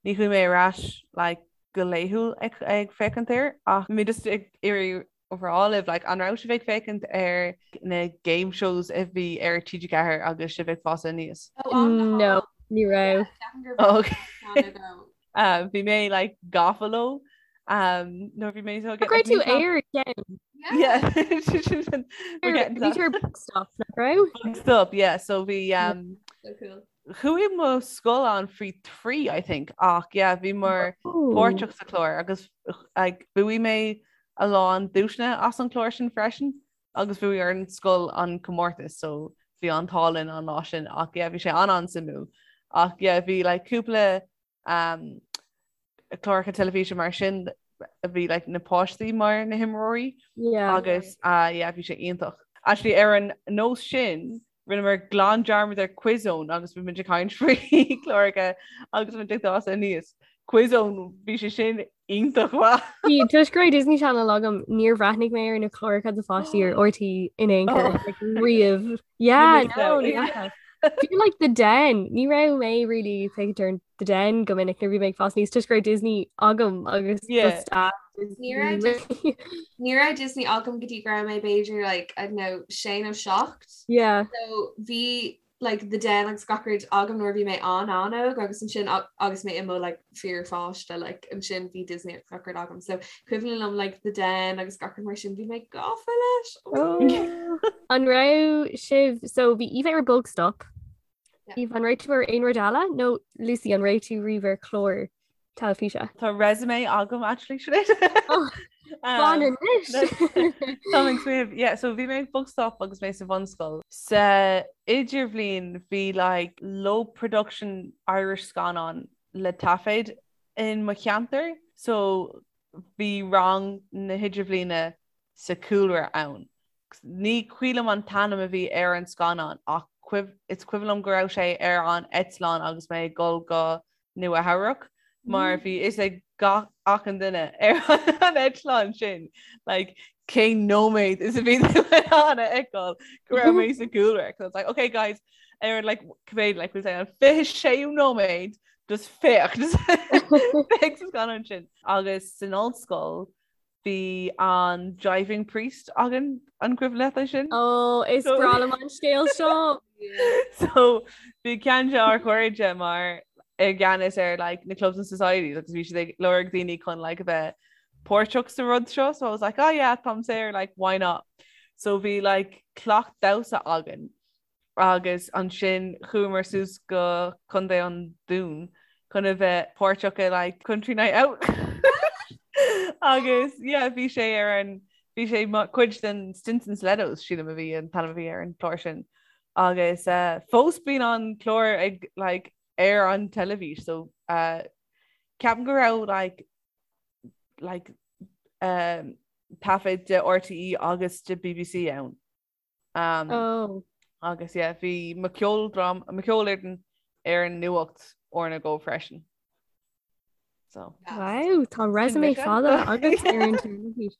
Speaker 4: ní chuaigh mé ar ais like go laethúil ag ag féachaint air ach bhí mé just ag iarraidh a rá libh like an raibh sibh ag féachaint ar na game shows a bhí ar TG4 agus sibh ag fás aníos?
Speaker 3: Oh,
Speaker 2: No, ní raibh.
Speaker 4: Okay. Um, bhí mé like gafa leo um, nuair bhí mé so
Speaker 2: Go raibh tú ar ceann.
Speaker 4: Yeah.
Speaker 2: Bhí tú ar Bugstop, nach raibh?
Speaker 4: Stop, yeah. So bhí um,
Speaker 3: So cool.
Speaker 4: chuaigh mo scoil ann faoi 3 I think ach yeah, bhí mar
Speaker 2: Oh.
Speaker 4: páirteach sa chlár agus like, bhuaigh mé a lán duaiseanna as an chlár sin freisin agus bhuaigh an scoil an comórtas so bhí an t-ádh linn an lá sin ach yeah, bhí sé an-an-suimiúil ach yeah, bhí like, cúpla um, cláracha teilifíse mar sin a bhí like, na páistí mar na himreoirí
Speaker 2: Yeah.
Speaker 4: agus uh, yeah, bhí sé iontach. Actually ar an nós sin rinneamar glan dearmad ar Quizzone agus bhí muid ag caint faoi chláracha agus muid ag fás aníos. Quizzone bhí sé sin iontach mhaith.
Speaker 2: Bhí toisc go raibh Disney Channel agam níor bhreathnaigh mé ar na cláracha do pháistí ar RTÉ in aon chor
Speaker 4: Oh.
Speaker 2: like, riamh. Yeah,
Speaker 4: Ní
Speaker 2: no,
Speaker 4: raibh.
Speaker 2: ní fhaca. Fiú like The Den, ní raibh mé really ag féachaint ar The Den go minic nuair a bhí mé ag fás aníos toisc go raibh Disney agam agus
Speaker 4: Yeah.
Speaker 2: just a
Speaker 3: Ní raibh
Speaker 2: Disney.
Speaker 3: Ní raibh Disney agam go dtí go raibh mé b'fhéidir like, I don't know, sé nó seacht.
Speaker 2: Yeah.
Speaker 3: So bhí like The Den agus gach rud agam nuair a bhí mé an-an-óg agus ansin agus mé i mo like fíorpháiste like ansin bhí Disney agus gach rud agam. So cuimhin liom like The Den agus gach rud mar sin bhí mé gafa leis.
Speaker 2: Oh. An raibh sibh so bhí Aoife ar Bugstop.
Speaker 3: Yeah.
Speaker 2: Aoife an raibh tú ar aon rud eile nó Lucy an raibh tú riamh ar chlár teilifíse?
Speaker 4: Tá resume agam actually Sinéad.
Speaker 2: Oh, Fan anois.
Speaker 4: Tá ag smaoineamh yeah, so bhí mé ag Bugstop agus mé sa bhunscoil. Sa idirbhliain bhí like low production Irish scannán le taifead in mo cheantar so bhí rang na hidirbhliana sa chúlra ann. Ní cuimhin liom an t-ainm a bhí ar an scannán ach is cuimhin liom go raibh sé ar an eitleán agus mé ag dul go Nua Eabhrac mar bhí fhios ag gach achan duine ar an eitleán sin like cén nóiméad is a bhí tú in ann a fheiceáil go raibh mé sa gcúlra. So it's like, okay guys, ar like cibé like we'll say an 26ú nóiméad just féach just féach sa scannán sin. Agus san ollscoil bhí an Jiving Priest againn an cuimhin leat é sin?
Speaker 2: Ó is breá liom an scéal seo.
Speaker 4: So bhí ceann de ár chairde mar i gceannas ar like, na clubs and societies agus bhí siad ag lorg daoine chun like, a bheith páirteach sa rud seo so I was like oh yeah táim saor like why not so bhí like cleacht damhsa againn agus ansin chuamar suas go Contae an Dúin chun a bheith páirteach i like Country Night Out agus yeah bhí sé ar an bhí sé cuid den Stinson Stilettos sílim a bhí an t-ainm a bhí ar an chlár sin agus uh, fós bíonn an clár ag like ar an teilifís so uh, ceapaim go raibh like like um, taifead de RTÉ agus de BBC ann. Um,
Speaker 2: oh.
Speaker 4: Agus yeah, bhí mo cheoldrám mo cheolfhoireann ar an nuacht uair nó dhó freisin. So.
Speaker 2: Wow, tá resume fada agat ar an teilifís.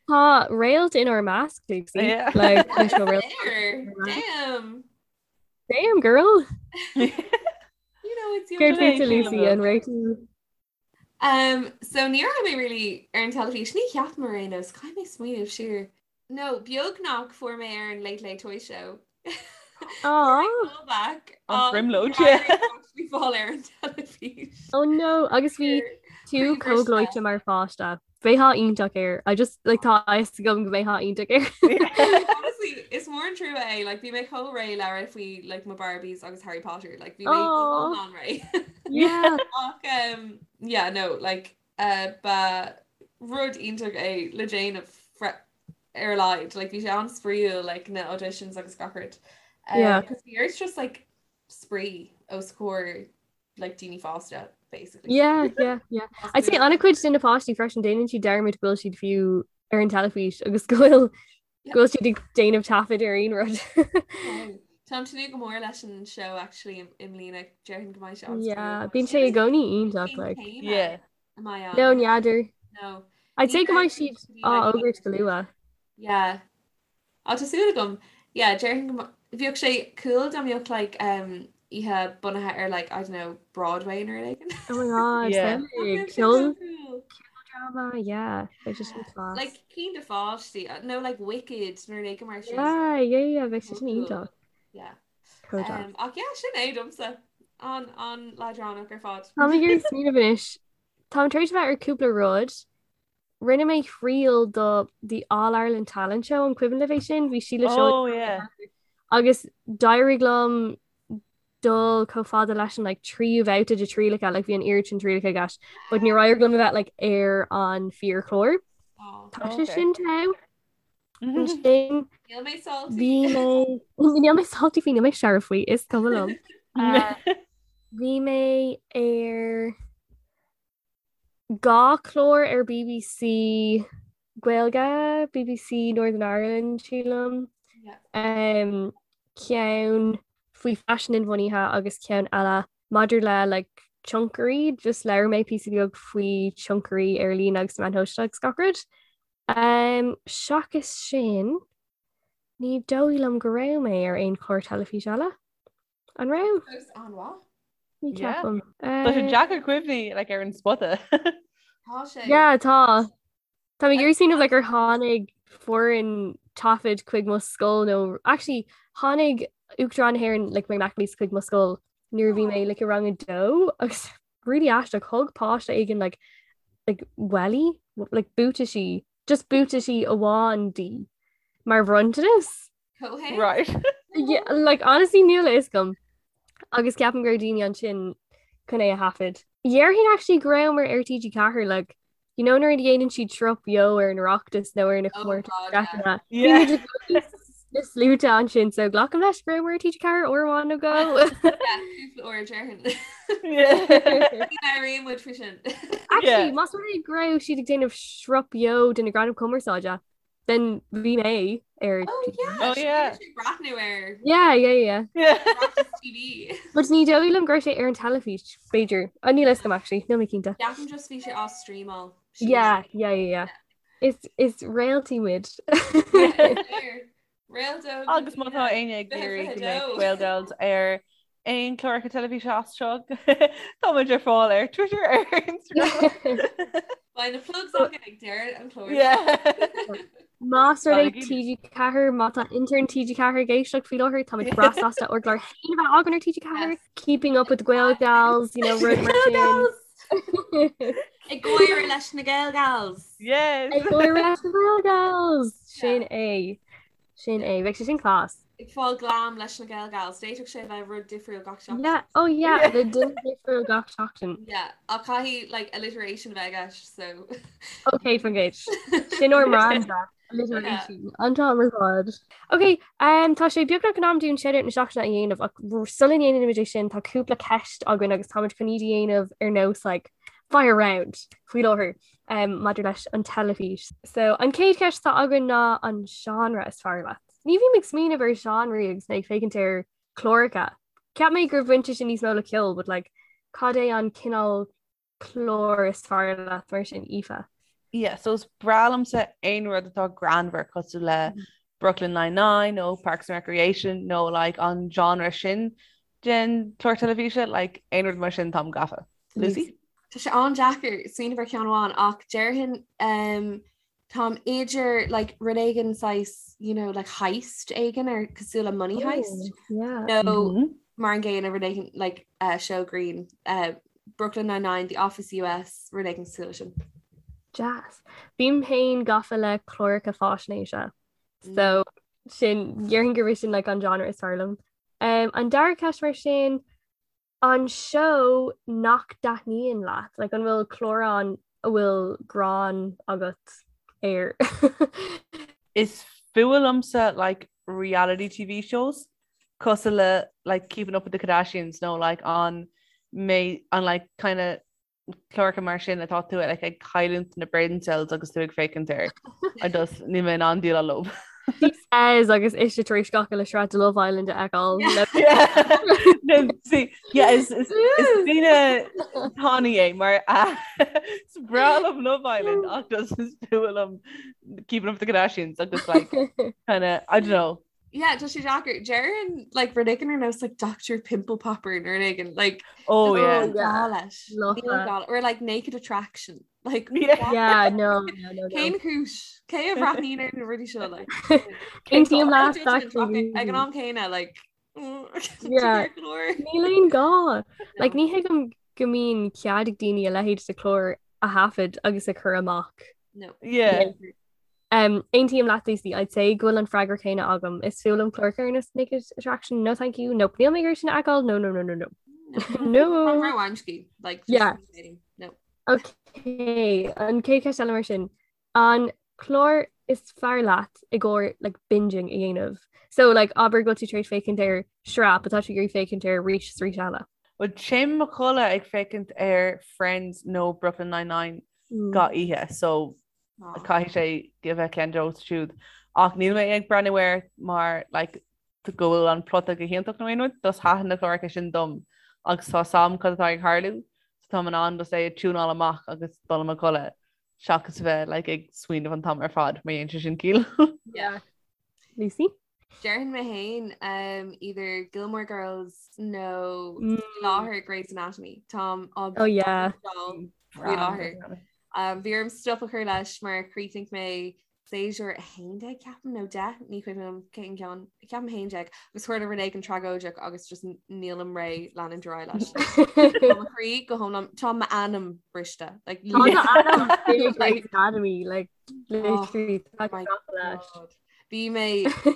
Speaker 2: Tá réalt inár measc, Lucy.
Speaker 4: Yeah.
Speaker 2: Like, leis na réalt.
Speaker 3: Damn.
Speaker 2: Damn, girl.
Speaker 3: You know it's your
Speaker 2: Céard fútsa,
Speaker 4: Sílim
Speaker 2: Lucy,
Speaker 4: go.
Speaker 2: an raibh tú
Speaker 3: Um, so ní raibh mé really ar an teilifís, ní cheapaim ar aon nós, caithfidh mé smaoineamh siar. No, beagnach fuair mé ar an Late Late Toy Show.
Speaker 2: Aww.
Speaker 3: Callback.
Speaker 4: An bhrionglóid, yeah.
Speaker 3: Bhí fáil ar an teilifís.
Speaker 2: Oh no, agus bhí tú chomh gleoite mar pháiste. Bheifeá iontach air. I just like tá a fhios agam go mbeifeá iontach air.
Speaker 3: Honestly, is mór an trua é, like bhí mé chomh réidh le rá faoi like mo Barbies agus Harry Potter, like bhí mé iomlán réidh.
Speaker 2: Yeah.
Speaker 3: Ach um, yeah, no, like uh, ba rud iontach é le déanamh ar a laghad, like bhí sé an-spraíúil like na auditions agus gach rud. Um,
Speaker 2: Yeah.
Speaker 3: Cos bhí ort just like spraoi os comhair like daoine fásta basically.
Speaker 2: Yeah, yeah, yeah. I'd say an-chuid de na páistí freisin déanann siad dearmad go bhfuil siad fiú ar an teilifís agus go bhfuil go bhfuil siad ag déanamh taifead ar aon rud.
Speaker 3: Táim ag tnúth go mór leis an show actually i mbliana déarfainn go mbeidh sé an
Speaker 2: Yeah, bíonn sé i gcónaí iontach like.
Speaker 4: Yeah.
Speaker 2: No, n'fheadar.
Speaker 3: No.
Speaker 2: I'd say go mbeidh siad á fhógairt go luath.
Speaker 3: Yeah. Á tá súil agam. Yeah, déarfainn go bheadh sé cool dá mbeadh like um, oíche bunaithe ar like, I don't know, Broadway nó rud éigin.
Speaker 2: Oh my god,
Speaker 4: Yeah.
Speaker 2: samhlaigh.
Speaker 3: That would be so
Speaker 2: Ceol
Speaker 3: cool.
Speaker 2: drama, yeah. Bheadh sé sin class.
Speaker 3: Like cinn do pháistí, nó like Wicked nó rud éigin mar sin.
Speaker 2: Yeah, yeah, yeah, bheadh sé sin
Speaker 3: Cool.
Speaker 2: iontach.
Speaker 3: Yeah.
Speaker 2: Chomh deas.
Speaker 3: Um, ach yeah, sin é domsa. An an leadránach ar fad.
Speaker 2: Táim ag iarraidh smaoineamh anois. Táim tar éis a bheith ar cúpla rud. Rinne mé triail do The All Ireland Talent Show an cuimhin libh é sin? Bhí Síle Seoige
Speaker 4: Oh yeah.
Speaker 2: agus d'éirigh liom dul chomh fada leis an like tríú babhta de trialacha like bhí an oiread sin trialacha i gceist but níor éirigh liom a bheith like ar an fíorchlár.
Speaker 3: Oh.
Speaker 2: Tá sé
Speaker 4: Okay.
Speaker 2: sin togha. Ansin
Speaker 3: Níl mé salty.
Speaker 2: bhí mé níl mé salty faoi níl mé searbh faoi is cuma liom. Uh, Bhí mé ar 2 chlár ar BBC Gaeilge, BBC Northern Ireland sílim, ceann faoi faisean inbhuanaithe agus ceann eile maidir le like tionchairí, just labhair mé píosa beag faoi tionchairí ar líne agus meáin shóisialta agus gach rud. Seachas sin, ní dóigh liom go raibh mé ar aon chlár teilifíse eile. An raibh?
Speaker 3: Fós an-mhaith.
Speaker 2: Ní ceapaim.
Speaker 4: Tá sé deacair cuimhní like, ar an spota.
Speaker 3: Tá sé.
Speaker 2: Yeah, tá. Tá mé ag iarraidh smaoineamh like, ar tháinig foireann taifid chuig mo scoil nó actually tháinig Uachtarán na hÉireann like, Mary McAleese chuig mo scoil nuair a bhí mé like, i rang a dó agus really aisteach thug páiste éigin like, like, welly like, buataisí just buataisí amháin di mar bhronntanas.
Speaker 3: Comhthéacs?
Speaker 4: Right.
Speaker 2: Yeah, like honestly níl a fhios agam. Agus ceapaim go raibh daoine ansin chun é a thaifead. Déarfainn actually go rabhamar ar TG4 like you know nuair a dhéanann siad sruth beo ar an Oireachtas nó ar na
Speaker 3: Oh
Speaker 2: comórtais
Speaker 3: God, yeah.
Speaker 2: sraitheanna. Bhí
Speaker 4: Yeah.
Speaker 2: muid i gcónaí sna sluaite ansin so glacaim leis go rabhamar ar TG4 uair amháin nó dhó.
Speaker 3: Yeah, cúpla uair déarfainn.
Speaker 4: Yeah.
Speaker 3: Ní labhraíonn muid faoi sin.
Speaker 2: Actually,
Speaker 4: Yeah.
Speaker 2: más rud é go raibh siad ag déanamh sruth beo de na Gradaim Cumarsáide, Then bhí mé ar
Speaker 3: Oh yeah,
Speaker 4: Oh, yeah.
Speaker 3: sé breathnú ar
Speaker 2: Yeah, yeah, yeah.
Speaker 4: Yeah.
Speaker 3: Oireachtas TV.
Speaker 2: But ní dóigh liom go raibh sé ar an teilifís, b'fhéidir. Oh, níl a fhios agam actually, níl mé cinnte.
Speaker 3: Ceapaim just bhí sé á streamáil.
Speaker 2: Yeah, yeah, yeah, yeah. Is is réaltaí muid.
Speaker 3: Réalta.
Speaker 4: Agus má tá éinne ag iarraidh go mbeidh Gael Gals ar aon chláracha teilifíse as seo tá muid ar fáil ar Twitter ar Instagram.
Speaker 3: Beidh na plugs againn ag deireadh an chláir.
Speaker 4: Yeah.
Speaker 2: Más rud é TG4 má tá intern TG4 ag éisteacht faoi láthair tá muid breá sásta ár gclár féin a bheith againn ar TG4 Keeping up with the Gael Gals, you know, rud mar sin.
Speaker 3: Ag gáire leis na Gael Gals.
Speaker 4: Yes.
Speaker 2: Ag gáire leis na Gael Gals. Sin é. Sin é. Bheadh sé sin class.
Speaker 3: Ag fáil glam leis na Gael Gals. D'fhéadfadh sé bheith rud difriúil gach seachtain.
Speaker 2: Yeah. Oh yeah, le duine difriúil gach seachtain.
Speaker 3: Yeah, ach caithfidh like alliteration a bheith i gceist, so.
Speaker 2: Ok, fan gcéid. Sin ár mbranda. Alliteration. An t-am ar fad. Ok, um, tá sé beagnach in am dúinn shoutout na seachtaine a dhéanamh ach sula ndéanaimid é sin tá cúpla ceist againn agus táimid chun iad a dhéanamh ar nós like, fire round faoi láthair. um, maidir leis an teilifís. So an chéad cheist atá againn ná an genre is fearr leat. Ní bhím ag smaoineamh ar genre agus mé ag féachaint ar chláracha. Cheap mé gur bhain sé sin níos mó le ceol, but like, cad é an cineál clár is fearr leat mar sin Aoife?
Speaker 4: Yeah, so is breá liomsa aon rud atá greannmhar cosúil le mm-hmm. Brooklyn Nine-Nine nó Parks and Recreation nó like, an genre sin den chlár teilifíse, like, aon rud mar sin táim gafa. Lucy?
Speaker 3: Tá sé an-deacair smaoineamh ar cheann amháin ach déarfainn um, táim idir like, rud éigin saghas you know, like heist éigin ar cosúil le Money oh, Heist
Speaker 2: yeah.
Speaker 3: nó mm -hmm. mar an gcéanna rud éigin like, uh, show grinn uh, Brooklyn Nine-Nine, The Office US, rud éigin cosúil leis sin.
Speaker 2: Deas. Bím féin gafa le cláracha faisnéise. So sin déarfainn gurb é sin like an genre is fearr liom. Um, an dara ceist mar sin, an seó nach dtaitníonn leat? Like an bhfuil clár ann a bhfuil gráin agat air?
Speaker 4: Is fuath liomsa like reality TV shows cosúil le like Keeping Up with the Kardashians nó like an mé an like kind of cláracha mar sin atá tú like ag cailliúint na brain cells agus tú ag féachaint air. I just níl mé in ann déileáil leo.
Speaker 2: She says agus ise tar éis gach uile sraith de Love Island a fheiceáil.
Speaker 4: No, see, yeah, is is is duine tanaí é mar is breá liom Love Island ach just is fuath liom Keeping Up with the Kardashians agus like kind of I don't know
Speaker 3: Yeah, tá sé deacair. Déarfainn like rud éigin ar nós like Dr. Pimple Popper nó rud éigin like
Speaker 4: Oh yeah.
Speaker 3: Níl gá leis. Níl gá or like Naked Attraction. Like
Speaker 2: Yeah. Yeah, no, no, no, no.
Speaker 3: Cén chúis? Cé a bhreathnaíonn ar na rudaí seo like?
Speaker 2: Aontaím leat,
Speaker 3: Ag an am céanna like
Speaker 2: Yeah. Níl aon gá. Like ní thuigim go mbíonn cead ag daoine a leithéid de chlár a thaifead agus a chur amach.
Speaker 3: No.
Speaker 4: Yeah.
Speaker 2: Um, Aontaím leat Lucy, I'd say go bhfuil an freagra céanna agam. Is fuath liom cláracha ar nós Naked Attraction, no thank you, nope, níl mé ag iarraidh sin a fheiceáil, no, no, no, no, no. No.
Speaker 3: Róamscaí, like, just
Speaker 2: Yeah.
Speaker 3: No.
Speaker 2: Ok, an chéad cheist eile mar sin. An clár is fearr leat i gcomhair like, binging a dhéanamh? So like, abair go bhfuil tú tar éis féachaint ar sraith, but tá tú ag iarraidh féachaint air arís is arís eile.
Speaker 4: Well, téim mo chodladh ag féachaint ar Friends nó Brooklyn Nine-Nine gach oíche, so Caithfidh sé a bheith ceann díobh siúd. Ach níl mé ag breathnú air mar like, go bhfuil an plota go hiontach nó aon rud, just thaitin na cláracha sin dom agus tá a fhios agam cad atá ag tarlú, so táim in ann just é a tiúnáil amach agus dul i mo chodladh seachas a bheith like, ag smaoineamh an t-am ar fad má dhéanann sé sin ciall.
Speaker 2: Yeah. Lucy?
Speaker 3: Déarfainn mé féin um, either Gilmore Girls nó mm. láthair Grey's Anatomy. Táim
Speaker 2: á oh, yeah.
Speaker 3: faoi láthair. Um, bhí orm stop a chur leis mar chríochnaigh mé séasúr 11 ceapaim nó 10 ní cuimhin liom cén ceann ceapaim 11 agus tharla rud éigin tragóideach agus just nílim réidh leanúint ar aghaidh leis. Tá mo chroí go hiomlán tá m'anam briste like,
Speaker 2: Grey's Anatomy like literally oh, my God.
Speaker 3: Bhí mé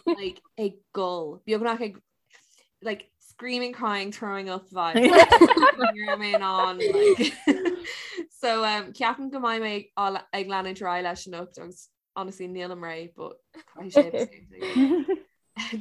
Speaker 3: like ag gol beagnach ag like screaming crying throwing up vibe Ní raibh mé in ann like so um, ceapaim go mbeidh mé á- ag leanúint ar aghaidh leis anocht agus honestly nílim réidh but caithfidh sé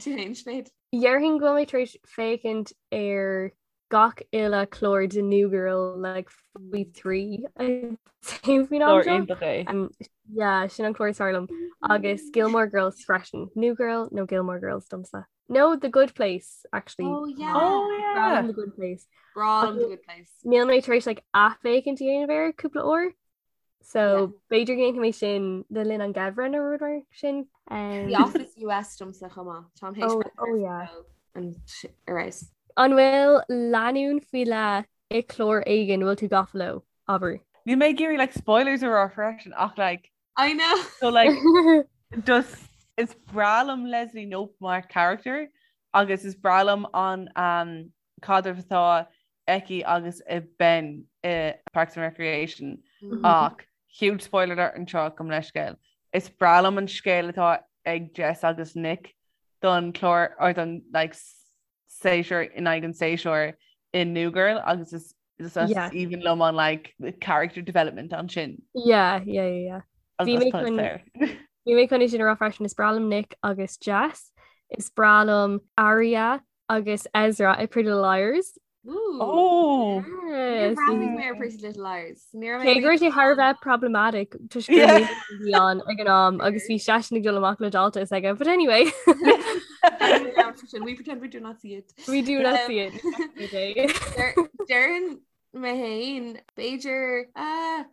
Speaker 3: Tú féin Sinéad?
Speaker 2: Déarfainn go bhfuil mé tar éis féachaint ar gach uile clár de New Girl like faoi thrí faoin am
Speaker 4: Clár
Speaker 2: seo.
Speaker 4: iontach é.
Speaker 2: Um, yeah, sin an clár is fearr liom. Agus Gilmore Girls freisin. New Girl nó Gilmore Girls domsa. No, The Good Place, actually.
Speaker 3: Oh yeah.
Speaker 4: Oh
Speaker 2: Breá
Speaker 4: yeah.
Speaker 2: liom The Good Place.
Speaker 3: Breá liom The Good Place.
Speaker 2: Níl mé tar éis like athfhéachaint a dhéanamh air cúpla uair. So b'fhéidir go ndéanfaidh mé sin le linn an gheimhridh nó rud mar sin.
Speaker 3: Um, The Office US domsa chomh maith. Táim théis
Speaker 2: Oh,
Speaker 3: breathnú
Speaker 2: oh,
Speaker 3: air
Speaker 2: yeah.
Speaker 3: faoi an ar fheabhas.
Speaker 2: An bhfuil lánúin faoi leith i clár éigin bhfuil tú gafa leo, abair?
Speaker 4: Níl mé ag iarraidh like spoilers a rá freisin ach like
Speaker 3: I know.
Speaker 4: so like just is breá liom Leslie Knope mar character agus is breá liom an um, caidreamh atá aici agus a Ben i Parks and Recreation
Speaker 3: Mm-hmm.
Speaker 4: ach huge spoiler alert anseo gabh mo leithscéal. Is breá liom an scéal atá ag Jess agus Nick don chlár or don like séasúr in aghaidh an séasúir i New Girl agus is is
Speaker 2: Yeah.
Speaker 4: aoibhinn liom an like character development ansin.
Speaker 2: Yeah, yeah, yeah, yeah.
Speaker 4: Agus
Speaker 2: Bhí mé
Speaker 4: tá
Speaker 2: chun-
Speaker 4: fair.
Speaker 2: Bhí mé chun é sin a rá freisin is breá liom Nick agus Jess, is breá liom Aria agus Ezra i Pretty Little Liars.
Speaker 3: Ooh.
Speaker 4: Oh!
Speaker 2: Yes.
Speaker 3: Bhreathnaigh mé ar Pretty Little Liars. Ní raibh mé
Speaker 2: Cé go raibh sé thar a bheith problematic toisc gur
Speaker 4: Yeah.
Speaker 2: mé a bhí ann ag an am agus bhí seisean ag dul amach le dalta is aige. But anyway,
Speaker 3: Sin, We pretend we do not see it.
Speaker 2: we do not
Speaker 3: Um,
Speaker 2: see it. Every day.
Speaker 3: Déarfainn mé féin b'fhéidir ah,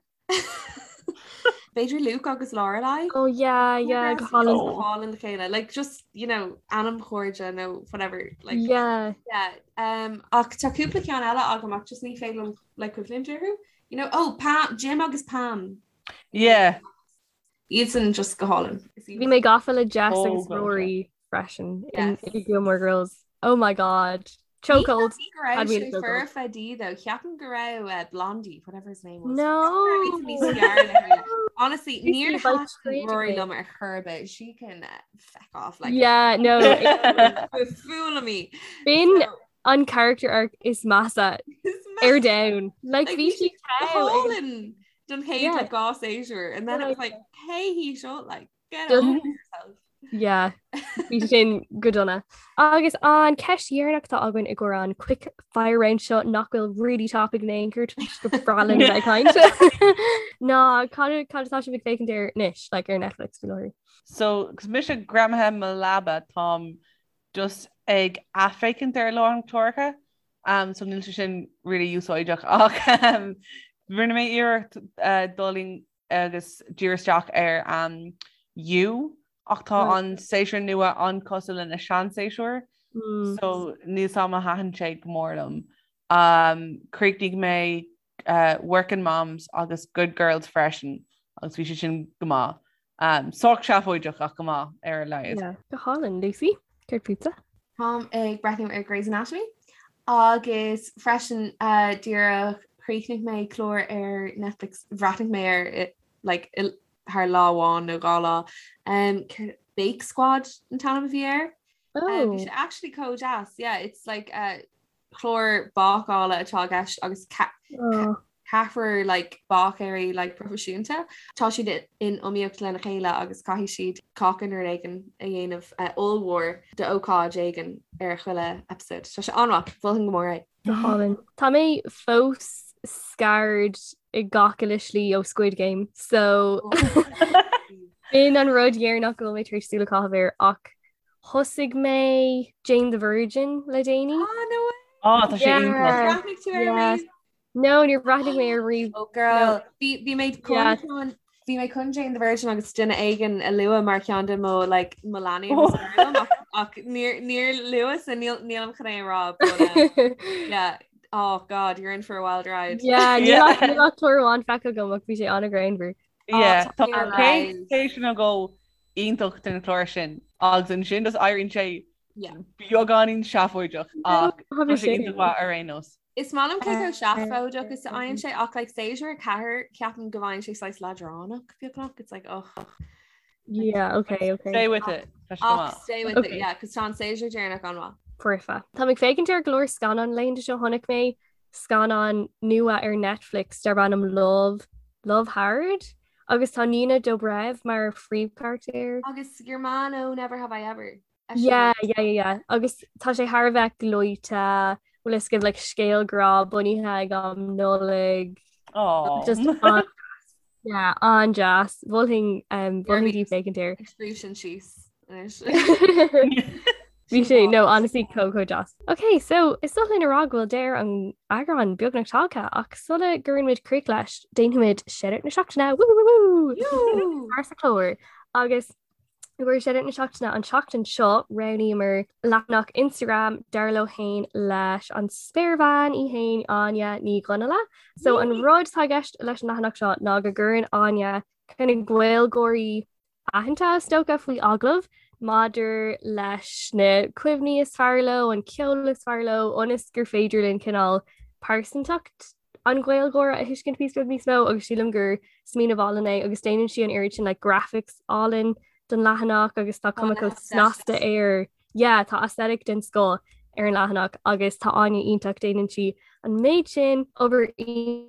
Speaker 3: B'fhéidir Luke agus Lorelai.
Speaker 2: Oh yeah, yeah, go hálainn.
Speaker 3: Go hálainn le chéile. Like just, you know, anamchairde nó whatever. Like,
Speaker 2: Yeah.
Speaker 3: yeah. Um, ach tá cúpla ceann eile agam ach just ní féidir liom like cuimhneamh orthu. You know, oh, Pam, Jim agus Pam.
Speaker 4: Yeah.
Speaker 3: Iadsan just go hálainn.
Speaker 2: Bhí mé gafa le Jess
Speaker 4: Oh,
Speaker 2: agus
Speaker 4: God,
Speaker 2: Rory freisin in
Speaker 3: Yes.
Speaker 2: in Gilmore Girls. Oh my God. Chokehold.
Speaker 3: Ní go raibh sé foirfe di though. Ceapaim go raibh uh, Blondie, whatever his name was.
Speaker 2: No.
Speaker 3: Honestly, níor thaitin Rory liom ar chor ar bith. She can uh, feck off like
Speaker 2: Yeah, no.
Speaker 3: Fool me.
Speaker 2: B'in an character arc is measa ar domhan. Like bhí sí
Speaker 3: hálainn don chéad like dhá séasúr and then it was like hey he shot like get over yourself.
Speaker 2: Yeah, bhí sin go dona. Agus an ceist dheireanach atá againn i gcomhair an quick fire round seo nach bhfuil really topic in aon chor go breá linn bheith ag caint. Ná cad cad atá sibh ag féachaint air anois, like ar Netflix faoi láthair?
Speaker 4: So, 'cause mise greamaithe i mo leaba táim just ag athfhéachaint ar a lán cláracha um, so níl sé sin really úsáideach ach um, rinne mé iarracht uh, dul in agus díriú isteach ar um, You ach tá an séasúr nua an-chosúil lena seanséasúr mm. so níl a fhios agam ar thaitin sé go mór liom. Um, chríochnaigh mé uh, Workin' Moms agus Good Girls freisin agus bhí sé sin go maith. Um, sách seafóideach ach go maith ar a laghad.
Speaker 2: Yeah. Go hálainn, Lucy, céard fútsa?
Speaker 3: Táim ag breathnú ar Grey's Anatomy agus freisin uh, díreach chríochnaigh mé clár ar Netflix bhreathnaigh mé air like, thar lá amháin nó dhá lá. Um, Bake Squad an t-ainm a bhí air. Oh. Um, bhí sé actually chomh deas. Yeah, it's like uh, clár bácála atá i gceist agus oh. ceathrar like, báicéirí like, proifisiúnta. Tá siad in iomaíocht lena chéile agus caithfidh siad cáca nó rud éigin a dhéanamh uh, ollmhór d'ócáid éigin ar chuile episode. Tá sé an-mhaith, mholfainn go mór é.
Speaker 2: Go hálainn. Tá mé fós scarred i gach uile slí ó Squid Game, so b'in an rud dheireanach go bhfuil mé tar éis súil a chaitheamh air ach Thosaigh mé Jane the Virgin le déanaí.
Speaker 3: Ah, no way!
Speaker 4: Ah, tá sé iontach.
Speaker 3: Bhreathnaigh tú air riamh?
Speaker 2: No, níor bhreathnaigh mé air riamh.
Speaker 3: Oh girl, bhí bhí mé chun chun bhí mé chun Jane the Virgin agus duine éigin a lua mar cheann de mo like mo leanaí agus oh. ach, ach níor níor luas so níl nílim chun é a rá but um, yeah oh god you're in for a wild ride.
Speaker 2: Yeah, níl ach níl ach clár amháin feicthe agam ach bhí sé an-ghreannmhar.
Speaker 4: Yeah, tá chéad séasúr nó dhó iontach den chlár sin agus ansin just éiríonn sé beagáinín seafóideach ach tá sé iontach maith ar aon nós.
Speaker 3: Is maith liom cé chomh seafóideach is a fhaigheann sé ach like séasúr 4 ceapaim go bhfaigheann sé saghas leadránach beagnach it's like oh
Speaker 2: Yeah, okay, okay.
Speaker 4: Stay with it. Tá sé go
Speaker 3: Ach
Speaker 4: maith.
Speaker 3: stay with it,
Speaker 2: Okay.
Speaker 3: yeah, cos tá an séasúr deireanach an-mhaith.
Speaker 2: Foirfe. Tá mé ag féachaint ar go leor scannán laethanta seo chonaic mé scannán nua ar Netflix darb ainm Love, Love Hard agus tá Nina Dobrev mar phríomhcharachtar.
Speaker 3: Agus your man ó Never Have I Ever.
Speaker 2: Yeah, yeah, yeah, yeah. Agus tá sé thar a bheith gleoite, bhfuil fhios agaibh like scéal grá bunaithe ag am Nollag.
Speaker 4: Aww.
Speaker 2: Just an yeah, an-deas. Mholfainn um, mholfainn daoibh féachaint air.
Speaker 3: Ag scríobh sin síos anois.
Speaker 2: Bhí sé no honestly chomh chomh deas. Ok, so is dóigh linn a rá go bhfuil deireadh an eagráin beagnach tagtha ach sula gcuireann muid críoch leis, déanfaimid shoutout na seachtaine woo woo woo woo mar sa chlár agus i gcomhair shoutout na seachtaine an tseachtain seo roghnaíomar leathanach Instagram dar leo féin leis an spéirbhean í féin Áine Ní Dhonnaile. So an rud atá i gceist leis an leathanach seo ná go gcuireann Áine kind of Gaeilgeoirí aitheanta is dócha faoi agallamh maidir leis na cuimhní is fearr leo, an ceol is fearr leo, ionas gur féidir linn cineál pearsantacht an Ghaeilgeora a thuiscint píosa beag níos mó agus sílim gur smaoineamh álainn é agus déanann sí an oiread sin like graphics álainn don leathanach agus tá cuma chomh snasta air. Yeah, tá aesthetic den scoth ar an leathanach agus tá Áine iontach, déanann sí an méid sin obair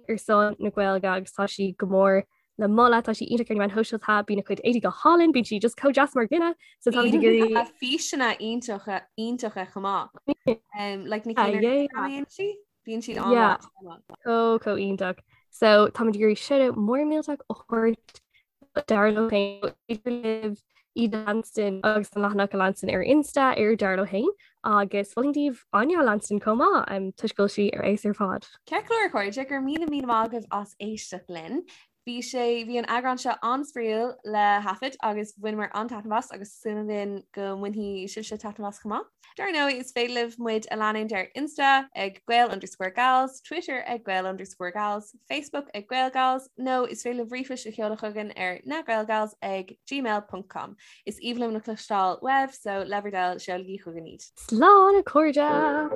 Speaker 2: ar son na Gaeilge agus tá sí go mór le moladh, tá sí iontach ar na meáin shóisialta, bíonn a cuid éadaí go hálainn, bíonn sí just chomh deas mar dhuine, so táimid ag iarraidh.
Speaker 3: Bíonn físeanna iontacha iontacha chomh maith. Um, like na cinn ar Instagram sí? Bíonn siad
Speaker 2: an-mhaith. Chomh chomh iontach. So táimid ag iarraidh shoutout mór millteach a thabhairt dar leo féin idir libh iad a leanstan agus an leathanach a leanstan ar Insta ar dar leo féin agus mholfainn daoibh Áine a leanstan chomh maith um, toisc go bhfuil sí ar fheabhas ar fad.
Speaker 3: Ceart go leor a chairde, go raibh míle míle maith agaibh as éisteacht linn. Bhí sé, bhí an eagrán seo an-spraíúil le thaifead agus bhaineamar an-taitneamh as agus súil againn go mbainfidh sibhse taitneamh as chomh maith. Dar ndóigh, is féidir libh muid a leanúint ar Insta ag Gael underscore Gals, Twitter ag Gael underscore Gals, Facebook ag GaelGals nó is féidir libh ríomhphoist a sheoladh chugainn ar nagaelgals ag gmail ponc com. Is aoibhinn liom le cloisteáil uaibh so le bhur dtoil seolaigí chugainn iad.
Speaker 2: Slán a chairde!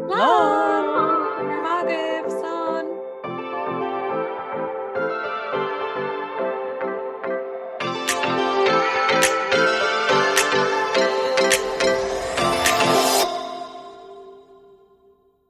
Speaker 3: Slán!